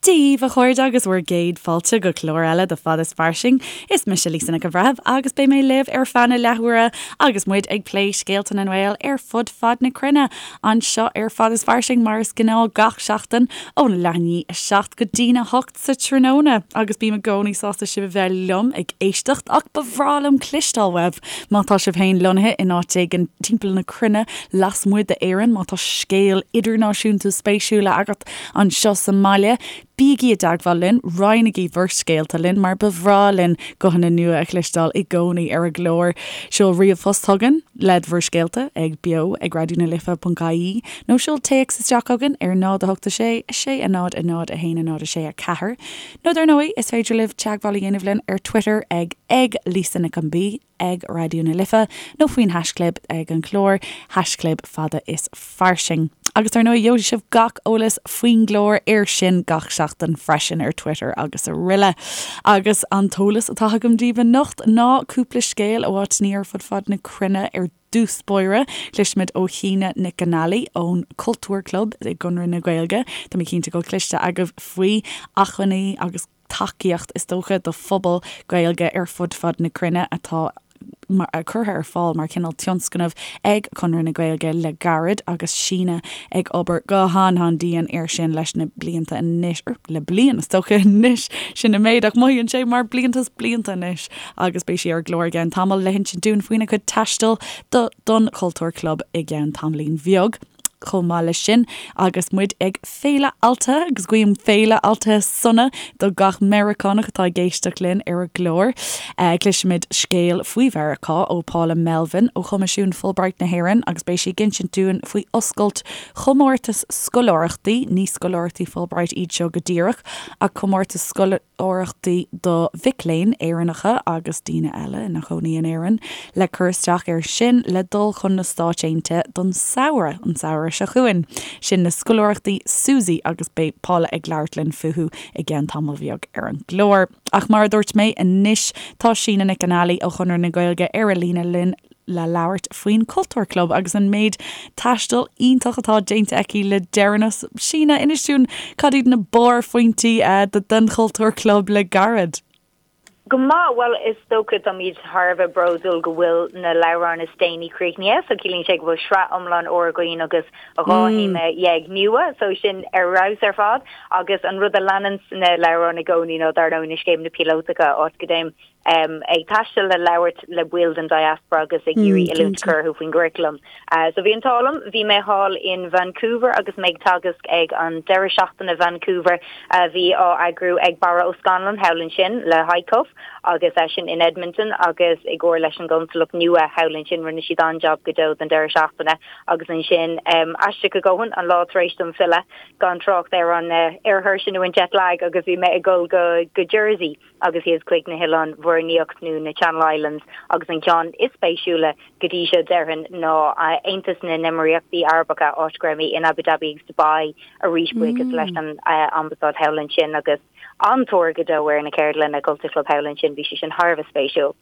Dia dhaoibh, a chairde, agus bhur gcéad fáilte go clár eile de Fad is Fairsing. Is mise Lisa Nic an Bhreithimh agus beidh mé libh ar feadh na leathuaire agus muid ag plé scéalta na nGael ar fud fad na cruinne anseo ar Fad is Fairsing mar is gnáth gach seachtain óna leath i ndiaidh a 7 go dtína 8 sa tráthnóna agus bím i gcónaí sásta sibh a bheith liom ag éisteacht ach ba bhreá liom cloisteáil uaibh má tá sibh féin lonnaithe in áit éigin timpeall na cruinne lasmuigh d'Éirinn, má tá scéal idirnáisiúnta spéisiúil agat anseo sa mbaile, bígí i dteagmháil linn, roinnigí bhur scéalta linn mar ba bhreá linn guthanna nua a chloisteáil i gcónaí ar an gclár. Seol ríomhphost chugainn le bhur scéalta ag beo ag raidionalife.ie nó seol téacs isteach chugainn ar 0 8 6 6 0 0 1 0 6 4 nó dar ndóigh is féidir libh teagmháil a dhéanamh linn ar Twitter ag ag Lisa Nic an B ag Raidió na Life nó faoin haischlib ag an chlár, haischlib fada is fairsing. Agus dar ndóigh gheobhaidh sibh gach eolas faoin gclár air sin gach seachtain freisin ar Twitter agus araile. Agus an t-eolas atá agam daoibh anocht ná cúpla scéal ó áiteanna ar fud fad na cruinne ar dtús báire. Cloisfimid ó Shíne Nic Con Ailí ón Cultúr Club i gConradh na Gaeilge. Tá mé cinnte go bhfuil cloiste agaibh faoi acmhainní agus tacaíocht, is dócha, do phobal Gaeilge ar fud fad na cruinne atá curtha ar fáil mar chineál tionscnamh ag Conradh na Gaeilge le gairid agus Síne ag obair go han-han-dian air sin leis na blianta anois, le bliain is dócha anois, sin an méid ach mothaíonn sé mar blianta is blianta anois agus beidh sí ar an gclár i gceann tamaill le hinsint dúinn faoina cuid taistil do don Chultúr Club i gceann tamaillín bheag. Chomh maith leis sin, agus muid ag Féile Altaithe, agus guím Féile Altaithe sona do gach Meiriceánach atá ag éisteacht linn ar an gclár, cloisfimid scéal faoi Mheiriceá ó Paula Melvin ó Choimisiún Fulbright na hÉireann agus beidh sí ag insint dúinn faoi oscailt chomórtas scoláireachtaí, ní scoláireachtaí Fulbright iad seo go díreach, ach comórtas scoláireachtaí do mhic léinn Éireannacha agus daoine eile ina chónaí in Éirinn le cur isteach air sin le dul chun na Stáit Aontaithe don samhradh, an samhradh seo chugainn. Sin na scoláireachtaí SUSI agus beidh Paula ag labhairt linn fúthu i gceann tamall bheag ar an gclár. Ach mar a dúirt mé, anois tá Síne Nic Con Ailí ó Chonradh na Gaeilge ar an líne linn le labhairt faoin Cultúr Club agus an méid taistil iontach atá déanta aici le deireanas. Síne, inis dúinn cad iad na barrphointí den Chultúr Club le gairid? Go maith, bhuel is dócha táimid thar a bheith bródúil go bhfuil na leabhráin is déanaí críochnaithe so ciallaíonn sé go bhfuil sraith iomlán úr againn agus 12 théama nua so sin ar fheabhas ar fad agus an rud a leanann na leabhráin i gcónaí ná dar ndóigh na scéimeanna píolótacha áit go dtéim ag taisteal le labhairt le baill den diaspora agus ag iarraidh oiliúint a chur orthu faoin gcuraclam. So bhí an t-ádh liom, bhí mé thall in Vancouver agus mé ag teagasc ag an deireadh seachtaine Vancouver a bhí á eagrú ag Barra Ó Scannláin thall ansin le HICoF agus eisean in Edmonton agus i gcomhar leis an gconsalacht nua thall ansin rinne siad an-jab go deo don deireadh seachtaine agus ansin aisteach go dóthain an lá tar éis dom filleadh gan trácht ar an ar thuirse nó an jet lag agus bhí mé ag dul go go Jersey. agus thíos chuig na hOileáin Mhuir nIocht nó na Channel Islands agus an ceann is spéisiúla go dtí seo déarfainn ná Aontas na nÉimíríochtaí Arabacha áit go raibh mé in Abu Dhabi agus Dubai arís buíochas leis an Ambasáid thall ansin agus an-tóir go deo ar na ceardlanna Culture Club thall ansin bhí sé sin thar a bheith spéisiúil.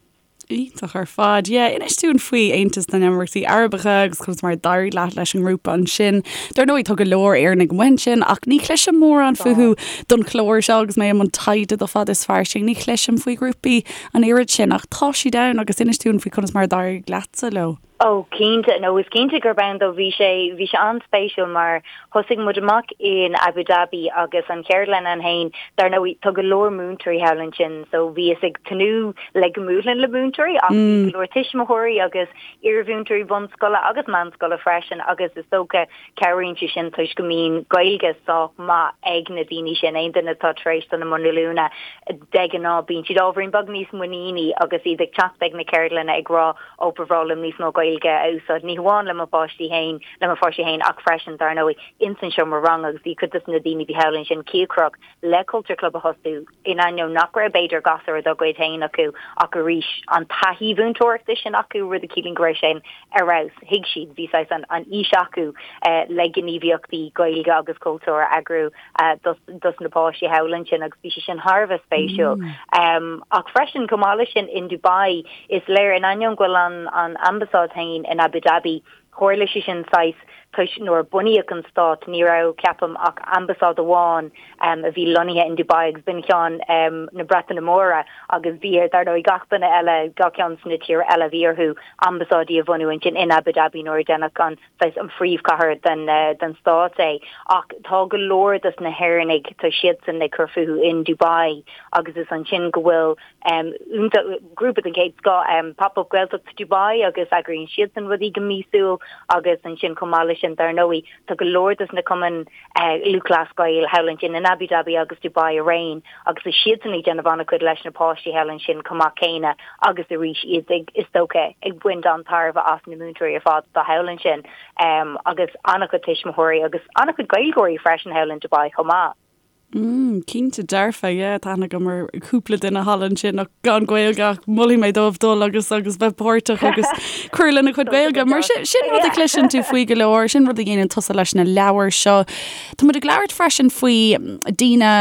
Iontach ar fad. Yeah, inis dúinn faoi Aontas na nÉimíríochtaí Arabacha agus conas mar a d'éirigh leat leis an ngrúpa ansin. Dar ndóigh tá go leor Éireannaigh amuigh ansin ach ní chloisim mórán fúthu don chlár seo agus mé i mbun taighde do Fad is Fairsing. Ní chloisim faoi ghrúpaí an oiread sin ach tá siad ann agus inis dúinn faoi conas mar a d'éirigh leatsa leo. Ó, cinnte, nó is cinnte gurb ann dó. Bhí sé, bhí sé an-spéisiúil mar thosaigh muid amach in Abu Dhabi agus an cheardlann ann féin, dar ndóigh, tá go leor múinteoirí thall ansin so bhíos ag tnúth le go mbuailfinn le múinteoirí ach bhí go leor tuismitheoirí agus iarmhúinteoirí bunscoile agus meánscoile freisin agus is dócha cabhraíonn sé sin toisc go mbíonn Gaeilge sách maith ag na daoine sin, aon duine atá tar éis dul i mbun oiliúna de ghnáth bíonn siad ábhairín beag níos muiníní agus iad ag teacht ag na ceardlanna ag rá ó ba bhreá liom níos mó Gaeilge a úsáid, ní hamháin le mo pháistí féin, le mo pháistí féin ach freisin, dar ndóigh, ins an seomra ranga agus bhí cuid dos na daoine a bhí thall ansin cíocrach le Culture Club a thosú, in ainneoin nach raibh b'fhéidir gasúir dá gcuid féin acu ach arís an taithí mhúinteoireachta sin acu, rud a chiallaíonn go raibh sé ar fheabhas, thuig siad, bhí saghas an an fhís acu le gníomhaíochtaí Gaeilge agus cultúir a eagrú dos dos na páistí thall ansin agus bhí sé sin thar a bheith spéisiúil. Ach freisin, chomh maith leis sin, in Dubai, is léir, in ainneoin go bhfuil an an ambasáid féin in Abu Dhabi, Tharla sé sin saghas toisc nuair a bunaíodh an stát ní raibh, ceapaim, ach ambasáid amháin a bhí lonnaithe in Dubai agus b'in ceann na Breataine Móire agus bhí ar, dar ndóigh, gach duine eile, gach ceann sna tíortha eile, bhí orthu ambasáidí a bhunú ansin in Abu Dhabi nuair a deineadh an, saghas, an phríomhchathair den, den stát é. Ach tá go leor dos na hÉireannaigh, tá siadsan ag cur fúthu in Dubai agus is ansin go bhfuil Grúpa den chéad scoth, Pop Up Gaeltacht Dubai agus eagraíonn siadsan rudaí go míosúil agus ansin chomh maith leis sin dar ndóigh tá go leor dos na cumainn Lúthchleas Gael thall ansin in Abu Dhabi agus Dubai araon agus tá siadsan ag déanamh an-chuid leis na páistí thall ansin chomh maith céanna agus arís iad ag is dócha ag baint an-tairbhe as na múinteoirí ar fad atá thall ansin agus an-chuid tuismitheoirí agus an-chuid Gaeilgeoirí freisin thall in Dubai chomh maith. Mm, cinnte dearfa, yeah, tá aithne agam ar chúpla duine thall ansin ach gan Gaeilge ach molfaidh mé dóibh dul agus agus bheith páirteach agus cur lena chuid Gaeilge. Mar sin, sin rud a chloiseann tú faoi go leor, sin rud a dhéanann tusa leis na leabhair seo. Tá muid ag labhairt freisin faoi daoine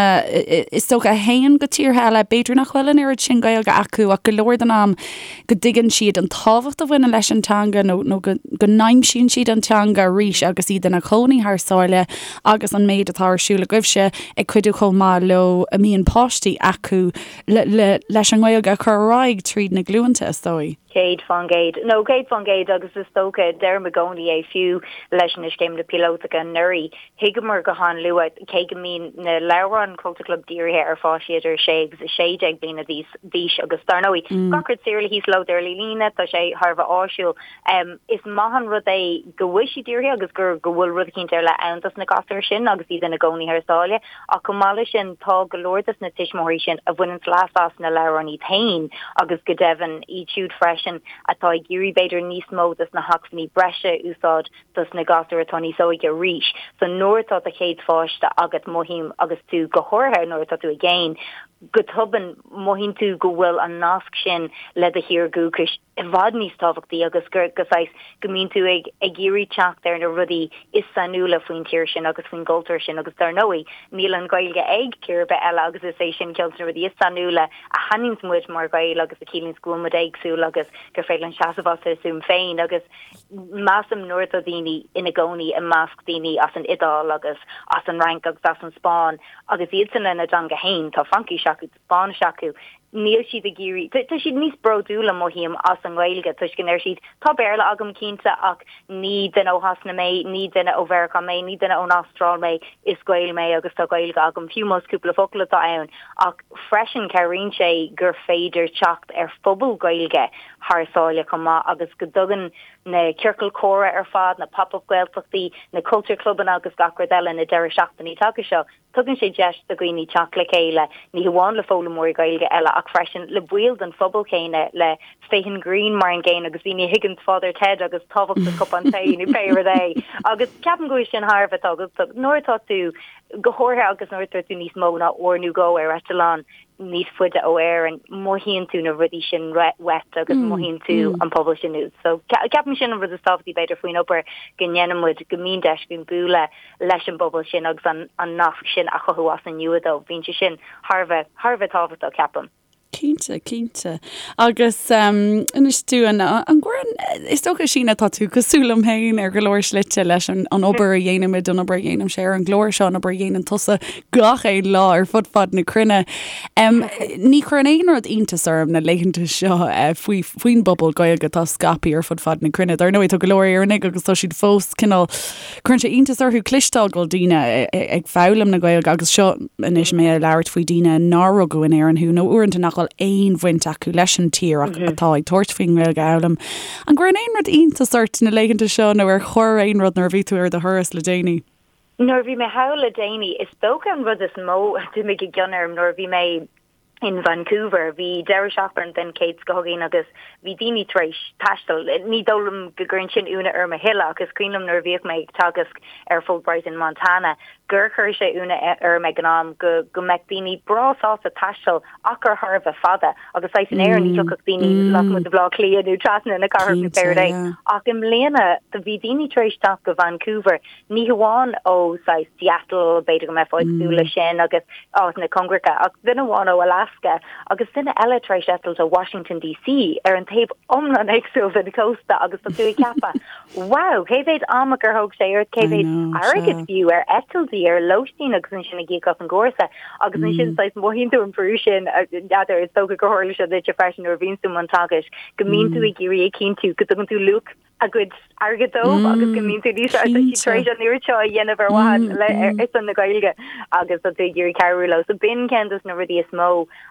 is dócha a théann go tíortha eile, b'fhéidir nach bhfuil an oiread sin Gaeilge acu ach go leor den am go dtuigeann siad an tábhacht a bhaineann leis an teanga nó nó go go n-aimsíonn siad an teanga arís agus iad ina gcónaí thar sáile agus an méid atá ar siúl agaibhse ag cuidiú chomh maith leo a mbíonn páistí acu le le leis an nGaeilge a chur ar aghaidh tríd na glúnta, is dóigh. 100%. No, 100% agus is dócha, deirim i gcónaí é fiú leis na scéimeanna píolótacha anuraidh, Thuigeamar go han-luath, cé go mbíonn na leabhráin Culture Club dírithe ar pháistí idir 6 agus 16 bliana d'aois agus dar ndóigh, gach rud saor le híoslódáil ar líne, tá sé thar a bheith áisiúil. Is maith an rud é go bhfuil siad dírithe agus gur go bhfuil rud eicínt ar leith ann dos na gasúir sin agus iad ina gcónaí thar sáile. Ach chomh maith leis sin, tá go leor dos na tuismitheoirí sin a bhaineanns leas as na leabhráin iad féin agus go deimhin iad siúd freisin atá ag iarraidh b'fhéidir níos mó dos na hacmhainní breise a úsáid dos na gasúir atá níos óige arís. So nuair atá do chéad pháiste agat mothaím agus tú go háirithe nuair atá tú i gcéin, go tobann mothaíonn tú go bhfuil an nasc sin le do thír dhúchais i bhfad níos tábhachtaí agus gur go saghas go mbíonn tú ag ag iarraidh teacht ar na rudaí is sainiúla faoin tír sin agus faoin gcultúr sin agus dar ndóigh níl an Ghaeilge ag tír ar bith eile agus is é sin ceann de na rudaí is sainiúla a shainíonns muid mar Ghaeil agus a chiallaíonns go bhfuil muid éagsúil agus gur féidir linn seasamh as ár stuaim féin agus Measaim nuair atá daoine ina gcónaí i measc daoine as an Iodáil agus as an Fhrainc agus as an Spáinn agus iadsan lena dteanga féin, tá Fraincis acu, tá Spáinnis acu, níl siad ag iarraidh, tá siad níos bródúla, mothaím, as an nGaeilge toisc go ndeir siad, tá Béarla agam cinnte ach ní duine ó Shasana mé, ní duine ó Mheiriceá mé, ní duine ón Astráil mé, is Gael mé agus tá Gaeilge agam, fiú más cúpla focal atá ann. Ach freisin cabhraíonn sé gur féidir teacht ar phobal Gaeilge thar sáile chomh maith agus go dtugann na ciorcail chomhrá ar fad, na pop-up Gaeltachtaí, na culture clubanna agus gach rud eile, na deireadh seachtainí taca seo, tugann sé deis do dhaoine teacht le chéile, ní hamháin le foghlaimeoirí Gaeilge eile ach freisin le baill den phobal chéanna, le Stephen Green mar an gcéanna agus daoine a thuigeann Father Ted agus tábhacht an cupán tae nó pé rud é. Agus ceapaim go bhfuil sin thar a bheith tábhachtach nuair atá tú, go háirithe agus nuair atá tú níos mó ná uair nó dhó ar eitleán, níos faide ó Éirinn, mothaíonn tú na rudaí sin uait agus mothaíonn tú an pobal sin uait. So ceapaim sin an rud is tábhachtaí b'fhéidir faoin obair go ndéanann muid, go mbíonn deis againn bualadh leis an bpobal sin agus an an nasc sin a chothú as an nua dóibh. Bíonn sé sin thar a bheith, thar a bheith tábhachtach, ceapaim. Cinnte, cinnte. Agus inis dúinn, an gcuireann, is dócha Síne tá tú cosúil liom féin ar go leor slite leis an an obair a dhéanaimid, an obair a dhéanaimse ar an gclár seo, an obair a dhéanann tusa gach aon lá ar fud fad na cruinne. Ní chuireann aon rud iontas orm na laethanta seo faoi faoin bpobal Gaeilge atá scaipthe ar fud fad na cruinne. Dar ndóigh tá go leor Éireannaigh agus tá siad fós cineál cuireann sé iontas orthu cloisteáil go bhfuil daoine ag foghlaim na Gaeilge agus seo anois mé ag labhairt faoi daoine nár rugadh in Éirinn thú nó uaireanta nach bhfuil aon bhaint acu leis an tír ach atá ag tabhairt faoin nGaeilge a fhoghlaim. An gcuireann aon rud iontas ort na laethanta seo nó ar chuir aon rud nuair a bhí tú ar do thuras le déanaí? Nuair a bhí mé thall le déanaí, is dócha an rud is mó a d'imigh i gcion orm nuair a bhí mé in Vancouver, bhí deireadh seachtaine den chéad scoth againn agus bhí daoine tar éis taisteal. Ní dóigh liom go gcuireann sin ionadh orm a thuilleadh ach is cuimhin liom nuair a bhíodh mé ag teagasc ar Fulbright in Montana. gur chuir sé ionadh orm ag an am go go mbeadh daoine breá sásta taisteal achar thar a bheith fada agus saghas in Éirinn ní thiocfadh daoine lasmuigh de Bhaile Átha Cliath nó trasna na cathrach nó pé rud é. Ach i mbliana do bhí daoine tar éis teacht go Vancouver ní hamháin ó saghas Seattle, b'fhéidir go mbeifeá ag súil leis sin agus áiteanna cóngaracha, ach duine amháin ó Alaska agus duine eile tar éis eitilt ó Washington DC ar an taobh iomlán éagsúil den chósta agus tá tú ag ceapadh, wow, cé mhéad ama gur thóg sé ort, cé mhéad airgead fiú ar eitiltí, ar lóistín agus ansin ag íoc as an gcúrsa agus ansin saghas mothaíonn tú an brú sin, n'fheadar, is dócha gur tharla sé duitse freisin nuair a bhíonn tú i mbun teagaisc, go mbíonn tú ag iarraidh a chinntiú go dtugann tú luach a gcuid airgid dóibh agus go mbíonn tú níos tá siad tar éis an oiread seo a dhéanamh ar mhaithe le ar son na Gaeilge agus tá tú ag iarraidh cabhrú leo. So b'in ceann dos na rudaí is mó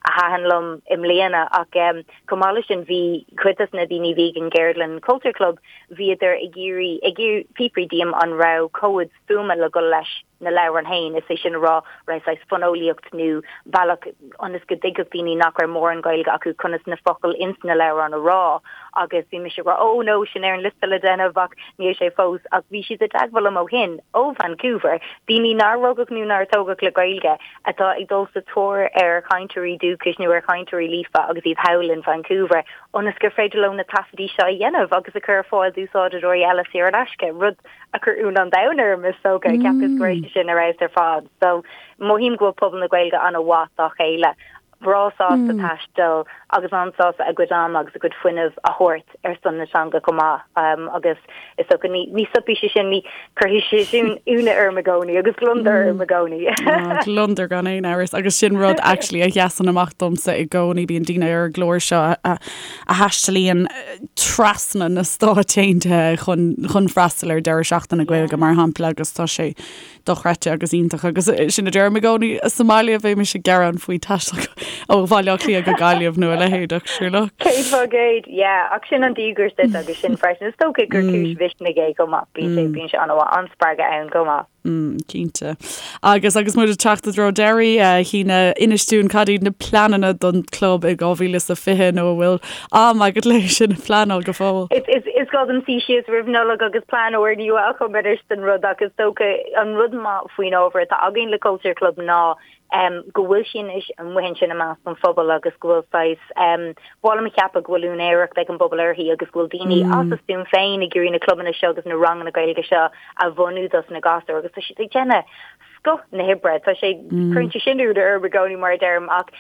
a thaitin liom i mbliana ach chomh maith leis sin bhí cuid dos na daoine a bhí ag an gceardlann Culture Club bhíodar ag iarraidh ag fiafraí díom an raibh comhaid fuaime le dhul leis na leabhráin féin, is é sin a rá, raibh saghas fonólaíocht nó bealach ionas go dtuigfeadh daoine nach raibh mórán Gaeilge acu conas na focail ins na leabhráin a rá agus bhí mise ag rá oh no, sin ar an liosta le déanamh ach níl sé fós ach bhí siad i dteagmháil liom ó shin, ó Vancouver, daoine nár rugadh nó nár tógadh le Gaeilge atá ag dul sa tóir ar chainteoirí dúchais nó ar chainteoirí líofa agus iad thall in Vancouver ionas gur féidir leo na taifeadaí seo a dhéanamh agus a chur ar fáil d'úsáideoirí eile saor in aisce, rud a chuir ionadh an domhain orm is dócha, cheapas go raibh sé sin ar fheabhas ar fad. So mothaím go bhfuil pobal na Gaeilge an-mhaith dá chéile, breá sásta taisteal agus an-sásta a gcuid ama agus a gcuid fuinnimh a thabhairt ar son na teanga chomh maith. Agus is dócha ní ní stopfaidh sé sin, ní cuirfidh sé sin ionadh orm i gcónaí agus gliondar orm i gcónaí. Gliondar gan aon amhras agus sin rud actually a sheasann amach domsa i gcónaí, bíonn daoine ar an gclár seo a a thaistealaíonn trasna na Stáit Aontaithe chun chun freastal ar deireadh seachtaine Gaeilge mar shampla agus tá sé dochreidte agus iontach agus sin a deirim i gcónaí sa mbaile bheimis ag gearán faoi taisteal ó Bhaile Átha Cliath go Gaillimh nó a leithéid ach sure look. 100%, yeah, ach sin an díograis duit agus sin freisin is dócha gur cúis mhisnigh é chomh maith, bíonn sé bíonn sé an-mhaith, an-spreagadh ann chomh maith. Mm, cinnte. Agus agus muid ag teacht i dtreo deiridh, a Shíne, inis dúinn cad iad na pleananna don chlub i 2020 nó an bhfuil am agat le sin a phleanáil go fóill? Is, is, is gá dom suí síos roimh Nollaig agus plean úrnua a chumadh anois don rud ach is dócha an rud maith faoin ábhar atá againn le Culture Club ná go bhfuil sí anois amuigh ansin i measc an phobail agus go bhfuil saghas, ba mhaith liom a cheapadh go bhfuil úinéireacht ag an bpobal uirthi agus go bhfuil daoine as a stuaim féin ag iarraidh na clubanna seo agus na ranganna Gaeilge seo a bhunú dos na gasúir agus tá siad ag déanamh scoth na hoibre. Tá sé, cuireann sé sin ionadh orm i gcónaí mar a deirim ach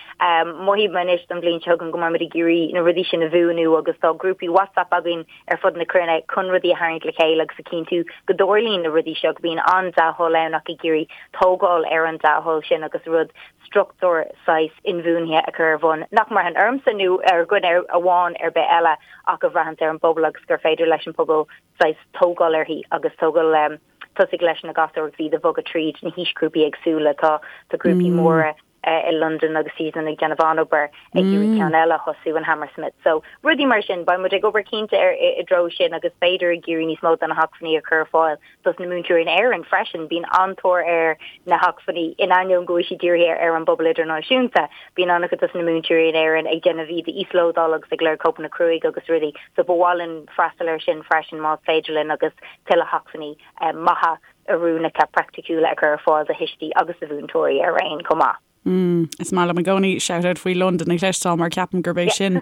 mothaím anois don bhliain seo chugainn go mbeidh muid ag iarraidh na rudaí sin a bhuanú agus tá grúpaí WhatsApp againn ar fud na cruinne chun rudaí a tharraingt le chéile agus a chinntiú go dtarlaíonn na rudaí seo, go mbíonn an-dea-thoil ann ach ag iarraidh tógáil ar an dea-thoil sin agus rud, struchtúr saghas inbhuanaithe a chur ar bhun, nach mbraitheann ormsa nó ar dhuine amháin ar bith eile ach a bhraitheanns ar an bpobal agus gur féidir leis an pobal saghas tógáil uirthi agus tógáil tosaigh leis na gasúir agus iad a bhogadh tríd na haoisghrúpaí éagsúla. Tá grúpaí móra i Londain agus iadsan ag déanamh an-obair ag iarraidh ceann eile a thosú in Hammersmith. So rudaí mar sin, beidh muid ag obair cinnte ar i dtreo sin agus b'fhéidir ag iarraidh níos mó de na hacmhainní a chur ar fáil dos na múinteoirí in Éirinn freisin. Bíonn an-tóir ar na hacmhainní in ainneoin go bhfuil siad dírithe ar an bpobal idirnáisiúnta. Bíonn an-chuid dos na múinteoirí in Éirinn ag déanamh iad a íoslódáil agus ag lorg cóipeanna cruaidh agus rudaí. So ba mhaith linn freastal air sin freisin más féidir linn agus tuilleadh hacmhainní maithe oiriúnacha praiticiúla a chur ar fáil do thuistí agus do mhúinteoirí araon chomh maith. Mm, is maith liom i gcónaí shout-out faoi Londain a chloisteáil mar ceapaim gurb é sin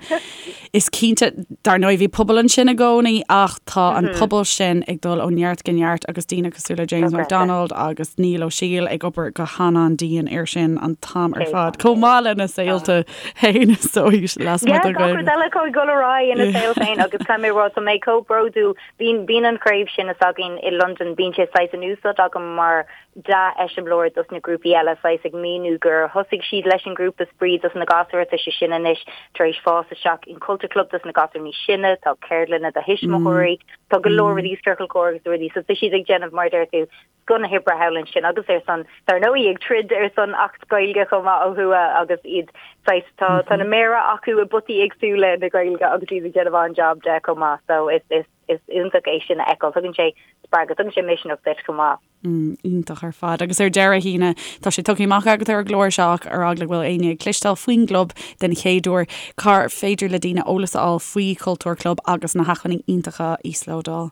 is cinnte dar ndóigh bhí pobal ansin i gcónaí ach tá an pobal sin ag dul ó neart go neart agus daoine cosúil le James McDonald agus Niall Ó Siail ag obair go han-an-dian air sin an t-am ar fad chomh maith lena saolta féin is dóigh lasmuigh den Ghaeilge. Gach rud eile acu ag dul ar aghaidh ina saol féin agus caithfidh mé a rá tá mé chomh bródúil Bíonn, bíonn an chraobh sin s'againn i Londain, bíonn sé saghas in úsáid agam mar dea-eiseamláir dos na grúpaí eile, saghas ag míniú gur thosaigh siad leis an grúpa spraoi dos na gasúir, tá sé sin anois tar éis fás isteach in Culture Club dos na gasúir níos sine, tá ceardlanna do thuismitheoirí, tá go leor rudaí, ciorcal comhrá agus rudaí, so tá siad ag déanamh, mar a deir tú, scoth na hoibre thall ansin agus ar son, dar ndóigh, ag troid ar son Acht Gaeilge chomh maith ó thuaidh agus iad saghas, tá, tá na méara acu i bpotaí éagsúla na Gaeilge agus iad ag déanamh an-jab de chomh maith so is, is, is iontach é sin a fheiceáil. Tugann sé spreagadh, tugann sé misneach duit chomh maith. Mm, iontach ar fad. Agus ar deireadh, a Shíne, tá sé tugtha amach agat ar an gclár seo ach ar eagla go bhfuil éinne ag cloisteáil faoin gclub den chéad uair, cár féidir le daoine eolas a fháil faoi Chultúr Club agus na hacmhainní iontacha a íoslódáil?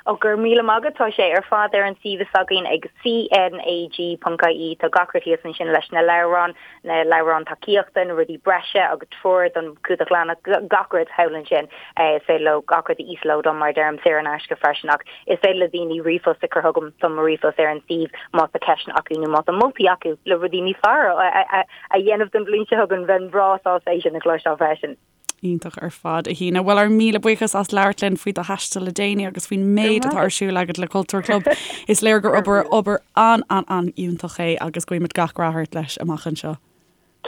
Ó, go raibh míle maith agat. Tá sé ar fad ar an suíomh s'againn ag CNAG.ie. Tá gach rud thíos ansin leis na leabhráin, na leabhráin tacaíochta, na rudaí breise agus treoir don chumhdach leathanach, gach rud thall ansin. Is féidir leo gach rud a íoslódáil mar a deirim, saor in aisce freisin ach is féidir le daoine ríomhphost a chur chugam, tá mo ríomhphost ar an suíomh má tá ceisteanna acu nó má tá moltaí acu le rudaí níos fearr a dhéanamh don bhliain seo chugainn, bheinn bhreá sásta é sin a chloisteáil freisin. Iontach ar fad, a Shíne. Bhuel, ár míle buíochas as labhairt linn faoi do thaisteal le déanaí agus faoin méid atá ar siúl agat le Cultúr Club. Is léir gur obair obair an-an-an-fhiúntach é agus guímid gach rath ort leis amach anseo.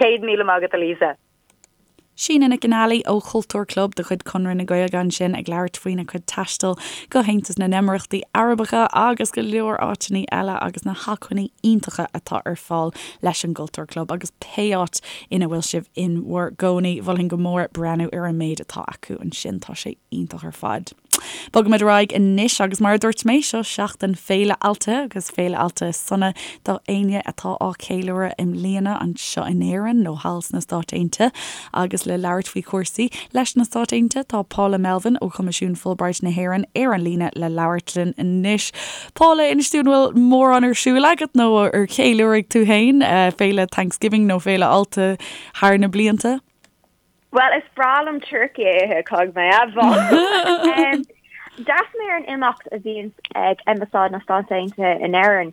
100,000 maith agat, a Lisa. Síne Nic an Ailí ó Chultúr Club de chuid Conradh na Gaeilge ansin ag labhairt faoina cuid taistil go hAontas na nEimireachtaí Arabacha agus go leor áiteanna eile agus na hacmhainní iontacha atá ar fáil leis an gCultúr Club agus pé áit ina bhfuil sibh in bhur gcónaí, mholfainn go mór breathnú ar an méid atá acu ansin, tá sé iontach ar fad. Bogaimid ar aghaidh anois agus mar a dúirt mé, seo seachtain Féile Altaithe agus Féile Altaithe sona do éinne atá á ceiliúradh i mbliana anseo in Éirinn nó thall sna Stáit Aontaithe. Agus le labhairt faoi chúrsaí leis na Stáit Aontaithe tá Paula Melvin ó Choimisiún Fulbright na hÉireann ar an líne le labhairt linn anois. Paula, inis dúinn an bhfuil mórán ar siúl agat nó ar cheiliúraigh tú féin féile Thanksgiving nó Féile Altaithe thar na blianta? Bhuel, is breá liom turcaí a ithe, caithfidh mé a admháil. D'fhreastail mé ar an imeacht a bhíonn ag Ambasáid na Stát Aontaithe in Éirinn.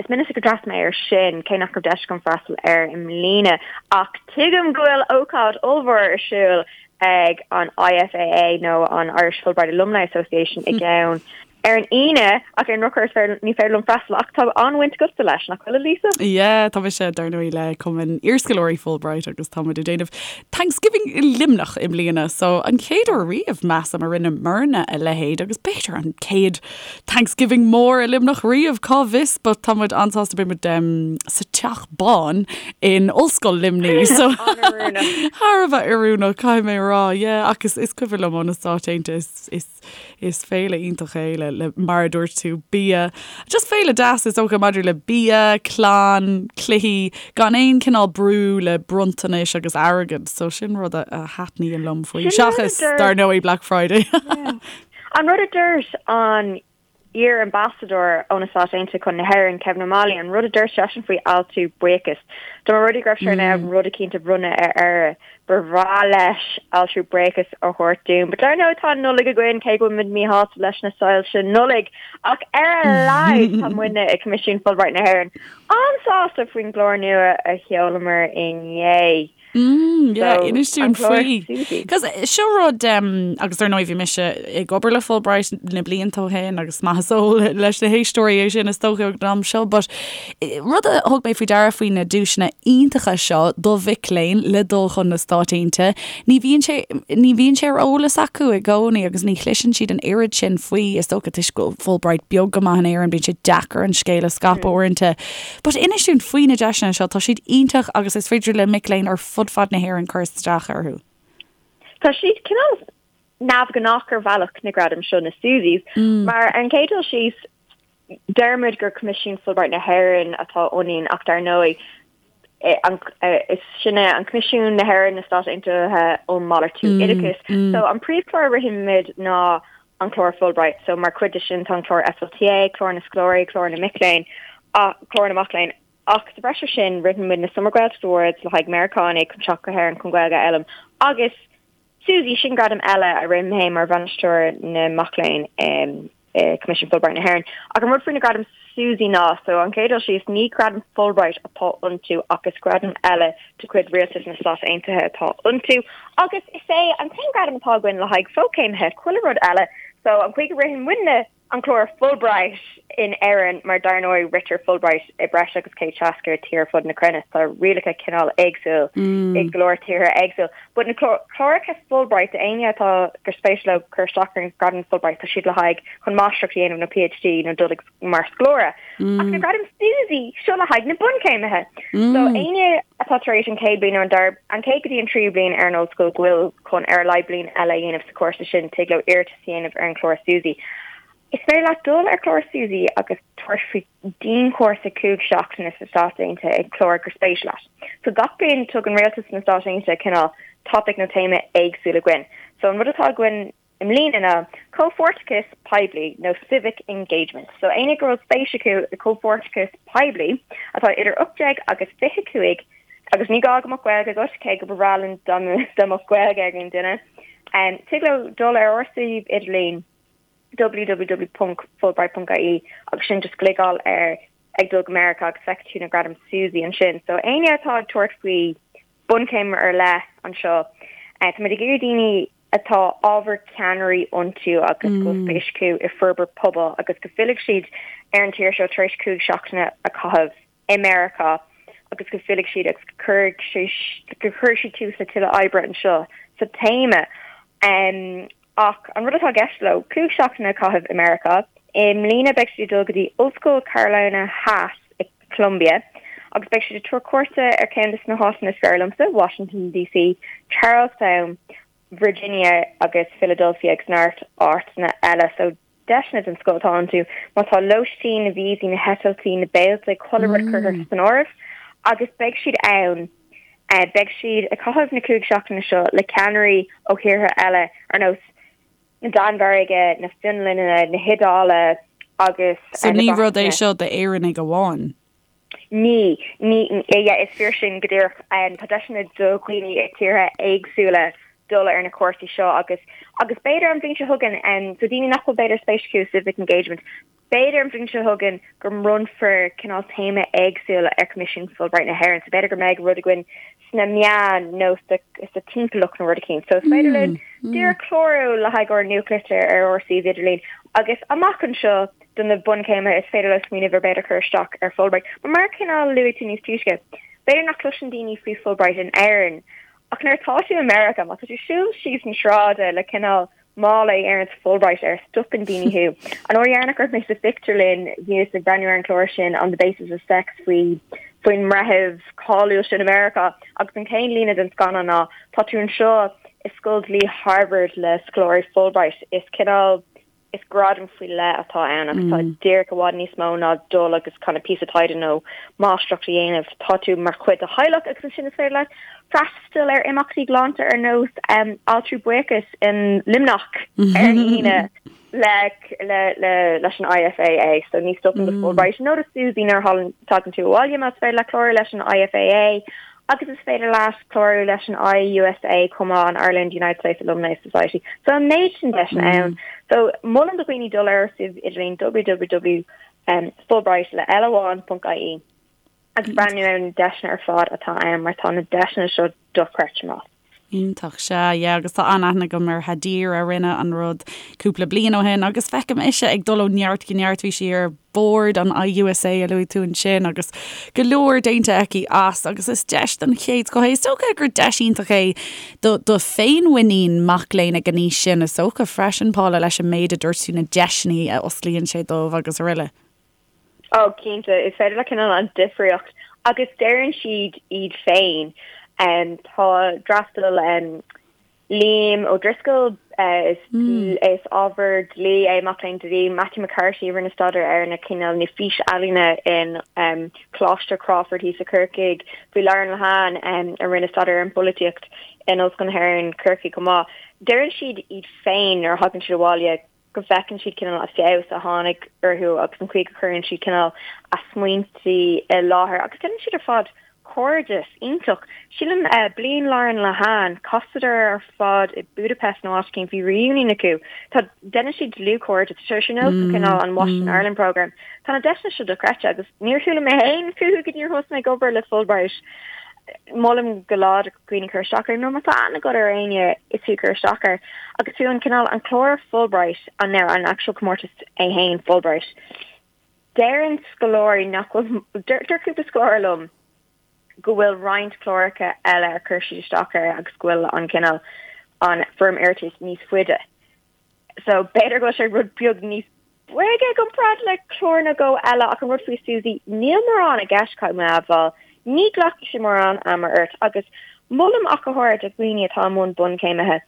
Is minic gur d'fhreastail mé air sin, cé nach raibh deis agam freastal air i mbliana. Ach tuigim go bhfuil ócáid ollmhór ar siúl ag an IFAA nó an Irish Fulbright Alumni Association i gceann ar an Aoine, ach ar an ndrochuair is féidir, ní féidir liom freastal, ach tá an-bhaint agatsa leis, nach bhfuil, a Lisa? Yeah, tá mise, dar ndóigh, le Cumann Iarscoláirí Fulbright agus tá muid ag déanamh Thanksgiving i Luimneach i mbliana, so an chéad uair riamh, measaim, a rinneamarna a leithéid agus b'fhéidir an chéad Thanksgiving mór i Luimneach riamh, cá bhfios, but tá muid an-sásta, beidh muid um, sa Teach Bán in Ollscoil Luimnigh, so thar a bheith oiriúnach, caithfidh mé a rá, yeah, ach is, is cuimhin liom ó na Stáit Aontaithe, is, is Is féile iontach é le, le, mar a dúirt tú, bia. Just féile deas is dócha maidir le bia, clann, cluichí, gan aon cineál brú le bronntanais agus airgead. So sin rud a, a thaitníonn liom faoi. Seachas, dar ndóigh, Black Friday. An rud a dúirt an iar-ambasadóir ó na Stáit Aontaithe chun na hÉireann, Kevin O'Malley, an rud a dúirt seisean faoi altiú buíochas, dá mba rud é go raibh sé in ann rud eicínt a bhronnadh ar Éire, Ba bhreá leis altrú buíochas a thabhairt dúinn. But dar ndóigh tá an Nollaig againn, cé go bhfuil muid míshásta leis na soilse Nollag. Ach ar a laghad tá muidne i Coimisiún Fulbright na hÉireann an-sásta faoin gclár nua a sheolamar inné. Mm, yeah, So, inis dúinn an clár faoi. SUSI. Cos seo rud, um, agus dar ndóigh bhí mise ag obair le Fulbright na blianta ó shin agus maith is eol leis na héisteoirí é sin is dócha ag an am seo, but Rud a thug mé faoi deara faoi na duaiseanna iontacha seo do mhic léinn le dul chun na Stáit Aontaithe, ní bhíonn sé, ní bhíonn sé ar eolas acu i gcónaí agus ní chloiseann siad an oiread sin faoi, is dócha toisc go bhfuil Fulbright beag go maith in Éirinn, bíonn sé deacair an scéal a scaipeadh uaireanta. But inis dúinn faoi na deiseanna seo, tá siad iontach agus is féidir le mic léinn ar fud fad na hÉireann cur isteach orthu. Tá siad cineál neamhghnách ar bhealach na gradaim seo, na Susies, mar ar an gcéad dul síos, Deirimid gur Coimisiún Fulbright na hÉireann atá ionainn ach dar ndóigh is sinne an Coimisiún na hÉireann na Stát Aontaithe um Malartú Oideachais. So an príomhchlár a rithimid ná an clár Fulbright. So mar chuid de sin tá an clár FLTA, clár na scoláirí, clár na mic léinn, clár na mac léinn. Ach sa bhreis ar sin ritheann muid na Summer Gaeltacht Awards le haghaidh Meiriceánaigh chun teacht go hÉirinn chun Gaeilge a fhoghlaim agus SUSI, sin gradam eile a rithim féin mar bhainisteoir na mac léinn i Coimisiún Fulbright na hÉireann. Ach an rud faoi na gradaim SUSI ná, so an chéad dul síos, ní gradaim Fulbright atá iontu ach is gradam eile de chuid Rialtas na Stát Aontaithe atá iontu. Agus is é an t-aon gradam atá againn le haghaidh fochéimithe, chuile rud eile, so an chaoi go ritheann muidne an clár Fulbright in Éirinn, mar dar ndóigh ritear Fulbright i breis agus 160 tír ar fud na cruinne, tá rialacha cineál éagsúil i go leor tíortha éagsúil. But na cláracha Fulbright, éinne atá gur spéis leo cur isteach ar an gradam Fulbright, tá siad le haghaidh chun máistreacht a dhéanamh nó PhD nó dul ag mar scoláire. Ach na gradaim SUSI, seo le haghaidh na bunchéimithe. So éinne atá tar éis an chéad bhliain nó an dara, an chéad go dtí an tríú bliain ar an ollscoil go bhfuil chun ar a laghad bliain eile a dhéanamh sa chúrsa sin, tig leo iarratas a dhéanamh ar an chlár SUSI. Is féidir leat dul ar chlár SUSI agus tabhairt faoi dianchúrsa 5 seachtaine sna Stáit Aontaithe ag clár gur spéis leat. So gach bliain tugann rialtas na Stáit Aontaithe cineál topaic nó téama éagsúil againn. So an rud atá againn. i mbliana ná comhpháirteachas poiblí nó civic engagement. So éinne go bhfuil spéis acu i comhpháirteachas poiblí atá idir 18 agus 25 agus ní gá go mbeadh Gaeilge agat, cé go ba bhreá linn dá mbeadh Gaeilge ag aon duine, tig leo dul ar ár suíomh idirlín www.fulbright.ie agus sin just gliogáil ar ag dul go Meiriceá agus feicfidh tú na gradaim Susi ansin. So éinne atá ag tabhairt faoi bunchéim ar leith anseo, táimid ag iarraidh daoine atá ábhar ceannairí iontu agus go bhfuil spéis acu i forbairt pobail agus go bhfillfidh siad ar an tír seo tar éis 5 seachtaine a chaitheamh i Meiriceá agus go bhfillfidh siad agus go gcuirfidh siad tús le tuilleadh oibre anseo sa téama. Ach an rud atá i gceist leo, 5 seachtaine a chaitheamh i Meiriceá. I mbliana beidh siad ag dul go dtí Ollscoil Carolina Theas i Columbia agus beidh siad ag tabhairt cuairte ar ceann de na háiteanna is fearr liomsa, Washington DC, Charlestown, Virginia agus Philadelphia agus neart áiteanna eile. So deiseanna den scoth atá iontu má tá lóistín, na víosaí, na heitiltí, na béiltí, chuile rud curtha san áireamh agus beidh siad ann, beidh siad ag caitheamh na 5 seachtaine seo le ceannairí ó thíortha eile ar nós na Danmhairge, na Fionlainne, na hIodáile agus So ní rud é seo d'Éireannaigh amháin? Ní, ní, yeah, is fíor sin go díreach. Tá deiseanna do dhaoine i tíortha éagsúla dul ar na cúrsaí seo agus, agus b'fhéidir an bhliain seo chugainn, so daoine nach bhfuil b'fhéidir spéis acu i civic engagement, B'fhéidir an bhliain seo chugainn go mbronnfar cineál téama éagsúil ar Choimisiún Fulbright na hÉireann, so b'fhéidir go mbeidh rud againn sna meáin nó sa timpeallacht nó rud eicínt. So is féidir linn díreach clárú le haghaidh ár nuachtlitir ar ár suíomh idirlín agus amach anseo do na bunchéimithe is féidir leo smaoineamh ar b'fhéidir cur isteach ar Fulbright. Mar mar cineál luaigh tú níos túisce, b'fhéidir nach cloiseann daoine faoi Fulbright in Éirinn ach nuair atá tú i Meiriceá, má tá tú siúl síos an sráide le cineál mála a deireanns Fulbright air, stopann daoine thú. An uair dheireanach go raibh mé sa phictiúrlann, bhíos ag breathnú ar an chlár sin On the Basis of Sex faoi faoin mbreitheamh cáiliúil sin i Meiriceá agus an chéad líne den scannán ná tá tú anseo i Scoil Dlí Harvard le scoláirí Fulbright. Is cineál is gradam faoi leith atá ann agus tá díreach i bhfad níos mó ná dul agus kind of píosa taighde nó máistreacht a dhéanamh. Tá tú mar chuid de theaghlach agus ansin is féidir leat freastal ar imeachtaí galánta ar nós Altraí Buíochais in Luimneach ar an Aoine le le leis an IFAA. So ní stopann do Fulbright nó do Susi nuair a thagann tú abhaile más féidir leat clárú leis an IFAA agus is féidir leat clárú leis an IUSA chomh maith, an Ireland United States Alumni Society. So an méid sin deiseanna ann. So molaim do dhaoine dul ar suíomh idirlín www fulbright le L amháin.ie. agus breathnú ar na deiseanna ar fad atá ann mar tá na deiseanna seo dochreidte maith. Iontach, sea, yeah, agus tá an-aithne agam ar Hadir a rinne an rud cúpla bliain ó shin agus feicim ise ag dul ó neart go neart, bhí sí ar bord an IUSA a luaigh tú ansin agus go leor déanta aici as agus is deis den chéad scoth é. Is dócha gur deis iontach é do do féinmhuinín mac léinn ag an aois sin is dócha freisin, Paula, leis an méid a dúirt tú na deiseanna a osclaíonn sé dóibh agus araile. Oh cinnte, is féidir le cineál an difríocht agus deireann siad iad féin. Tá d'fhreastail Liam O'Driscoll, is is ábhar dlí é, mac léinn dlí, Matthew McCarthy a rinne staidéar ar na cineál na fís-ealaíona in Coláiste Crawford thíos i Corcaigh, bhí Lauren Lehane a rinne staidéar ar an bpolaitíocht in Ollscoil na hÉireann, Corcaigh chomh maith. Deireann siad iad féin nuair a thagann siad abhaile go bhfeiceann siad cineál an feabhas a tháinig orthu agus an chaoi go gcuireann siad cineál a smaointe i láthair agus déanann siad ar fad cairdeas iontach. Sílim bliain Lauren Lehane, chasadar ar fad i Budapest nó áit éicint, bhí reunion acu. Tá, déanann siad dlúthchairdeas, tá sé ar nós cineál an Washington Ireland Programme. Tá na deiseanna seo dochreidte agus níor chuala mé féin fúthu go dtí gur thosaigh mé ag obair le Fulbright. Molaim go láidir dhaoine cur isteach air nó má tá aithne agat ar éinne is fiú cur isteach air agus fiú an cineál an clár Fulbright an now an actual comórtas é féin Fulbright deireann scoláirí nach bhfuil deir cúpla scoláire liom go bhfuil roinnt cláracha eile ar chuir siad isteach air agus go bhfuil an cineál an foirm iarratais níos faide So b'fhéidir go bhfuil sé rud beag níos boige i gcomparáid le clár nó dhó eile ach an rud faoi Susi, níl mórán i gceist caithfidh mé a admháil. Ní ghlacfaidh sé mórán ama ort agus molaim ach go háirid do dhaoine atá i mbun bunchéimithe,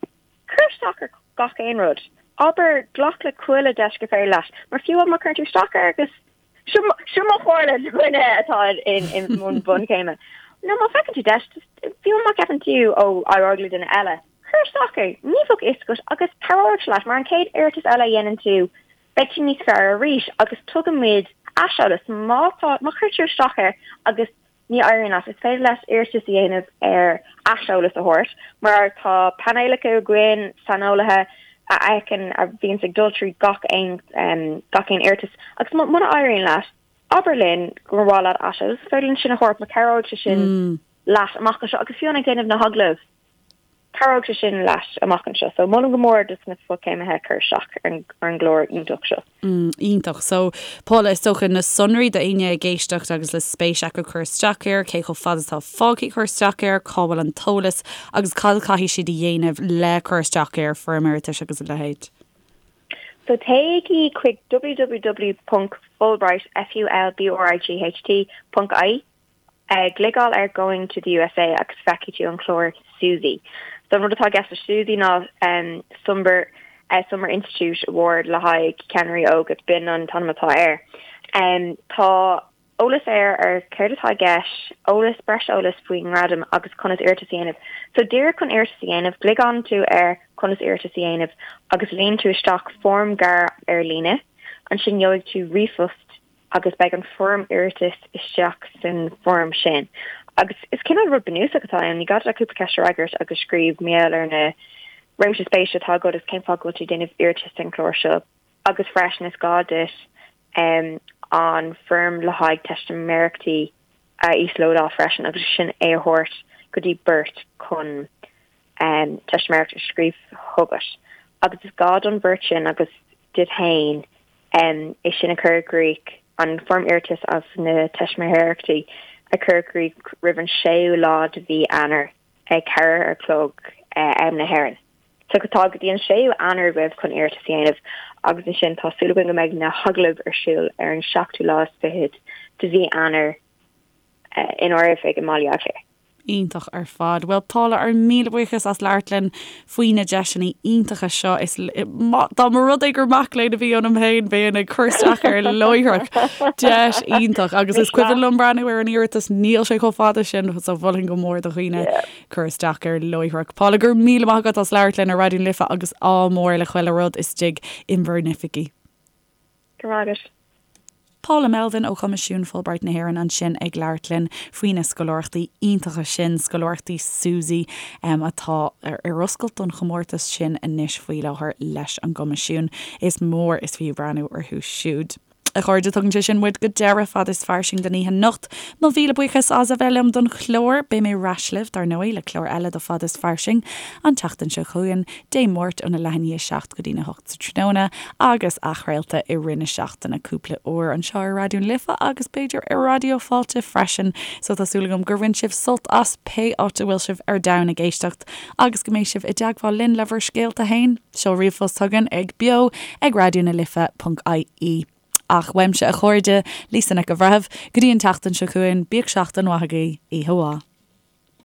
cuir isteach ar gach aon rud. Abair, glac le chuile deis gur féidir leat, mar fiú má chuireann tú isteach air agus Seo mo chomhairle do dhuine atá i mbun bunchéime. Nó má feiceann tú deis, fiú má cheapann tú ó éireoidh le duine eile. Cuir isteach air, ní bheadh a fhios agat agus cabhróidh sé leat mar an chéad iarratas eile a dhéanann tú, beidh tú níos fearr arís agus tugann muid aiseolas má tá, má chuir tú isteach air agus ní éiríonn leat, is féidir leat iarratas a dhéanamh ar aiseolas a thabhairt mar tá painéalacha againn, saineolaithe a fheiceann, a bhíonns ag dul trí gach aon, gach aon iarratas agus muna éiríonn leat, abair linn gur mhaith leat aiseolas, is féidir linn sin a thabhairt mar cabhróidh sé sin leat amach anseo agus fiú ag déanamh na hagallaimh. Cabhróidh sé sin leat amach anseo. So molaim go mór dos na fochéimithe cur isteach ar an gclár iontach seo. Iontach. So, Paula, is dócha na sonraí do éinne ag éisteacht agus le spéis acu cur isteach air, cé chomh fada atá fágtha cur isteach air, cá bhfuil an t-eolas agus cad a chaithfidh siad a dhéanamh le cur isteach air, foirm iarratais agus a leithéid. So téigí chuig www.fulbright, F-U-L-B-R-I-G-H-T, ponc ie. Gliogáil ar Going to the USA agus feicfidh tú an clár SUSI. So an rud atá i gceist le SUSI ná Summer Summer Institute Award le haghaidh ceannairí óga, b'in an t-ainm atá air. Tá eolas air ar céard atá i gceist, eolas, breis eolas faoin ngradam agus conas iarratas a dhéanamh. So díreach chun iarratas a dhéanamh, gliogálann tú ar conas iarratas a dhéanamh agus líon tú isteach foirm gearr ar líne. Ansin gheobhaidh tú ríomhphost agus beidh an foirm iarratais isteach san foirm sin. Agus is cineál rud bunúsach atá ann, ní gá duit ach cúpla ceist a fhreagairt agus scríobh mar gheall ar na réimse spéise atá agat agus cén fáth go bhfuil tú ag déanamh iarratais don chlár seo. Agus freisin is gá duit an foirm le haghaidh teistiméireachtaí a íoslódáil freisin agus sin é a thabhairt go dtí beirt chun teistiméireacht a scríobh chugat. Agus is gá don bheirt sin agus duit féin é sin a chur i gcrích, an foirm iarratais agus na teistiméireachtaí a chur i gcrích roimh an séú lá de mhí Eanáir ag 4 a chlog am na hÉireann. So tá go dtí an séú Eanáir agaibh chun iarratas a dhéanamh agus ansin tá súil againn go mbeidh na hagallaimh ar siúl ar an seachtú lá is fichead de mhí Eanáir inár oifig i mBaile Átha Cliath. Iontach ar fad. Bhuel Paula, ár míle buíochas as labhairt linn faoi na deiseanna iontacha seo. Is dá mba rud é gur mac léinn a bhí ionam féin, bheinn ag cur isteach air láithreach. Deis iontach agus is cuimhin liom breathnú ar an iarratas, níl sé chomh fada sin, so mholfainn go mór do dhaoine cur isteach air láithreach. Paula, go raibh míle maith agat as labhairt linn ar Raidió na Life agus ádh mór le chuile rud istigh in bhur n-oifigí. Go raibh maith agat. Paula Melvin ó Choimisiún Fulbright na hÉireann ansin ag labhairt linn faoi na scoláireachtaí iontacha sin, scoláireachtaí SUSI, atá ar oscailt don chomórtas sin anois faoi láthair leis an gCoimisiún. Is mór is fiú breathnú orthu siúd. A chairde, tugann sé sin muid go deireadh Fad is Fairsing don oíche anocht. Mo mhíle buíochas as a bheith liom don chlár. Beidh mé ar ais libh, dar ndóigh, le clár eile de Fad is Fairsing an tseachtain seo chugainn, Dé Máirt óna leath i ndiaidh a 7 go dtína 8 sa tráthnóna agus athchraolta i rith na seachtaine cúpla uair anseo ar Raidió na Life agus b'fhéidir ar Raidió Fáilte freisin. So tá súil agam gur bhain sibh sult as pé áit a bhfuil sibh ar domhan ag éisteacht agus go mbeidh sibh i dteagmháil linn le bhur scéalta féin. Seol ríomhphost chugainn ag beo ag raidionalife.ie. Ach uaimse a chairde, Lisa Nic an Bhreithimh, go dtí an tseachtain seo chugainn, bíodh seachtain mhaith agaibh, oíche mhaith.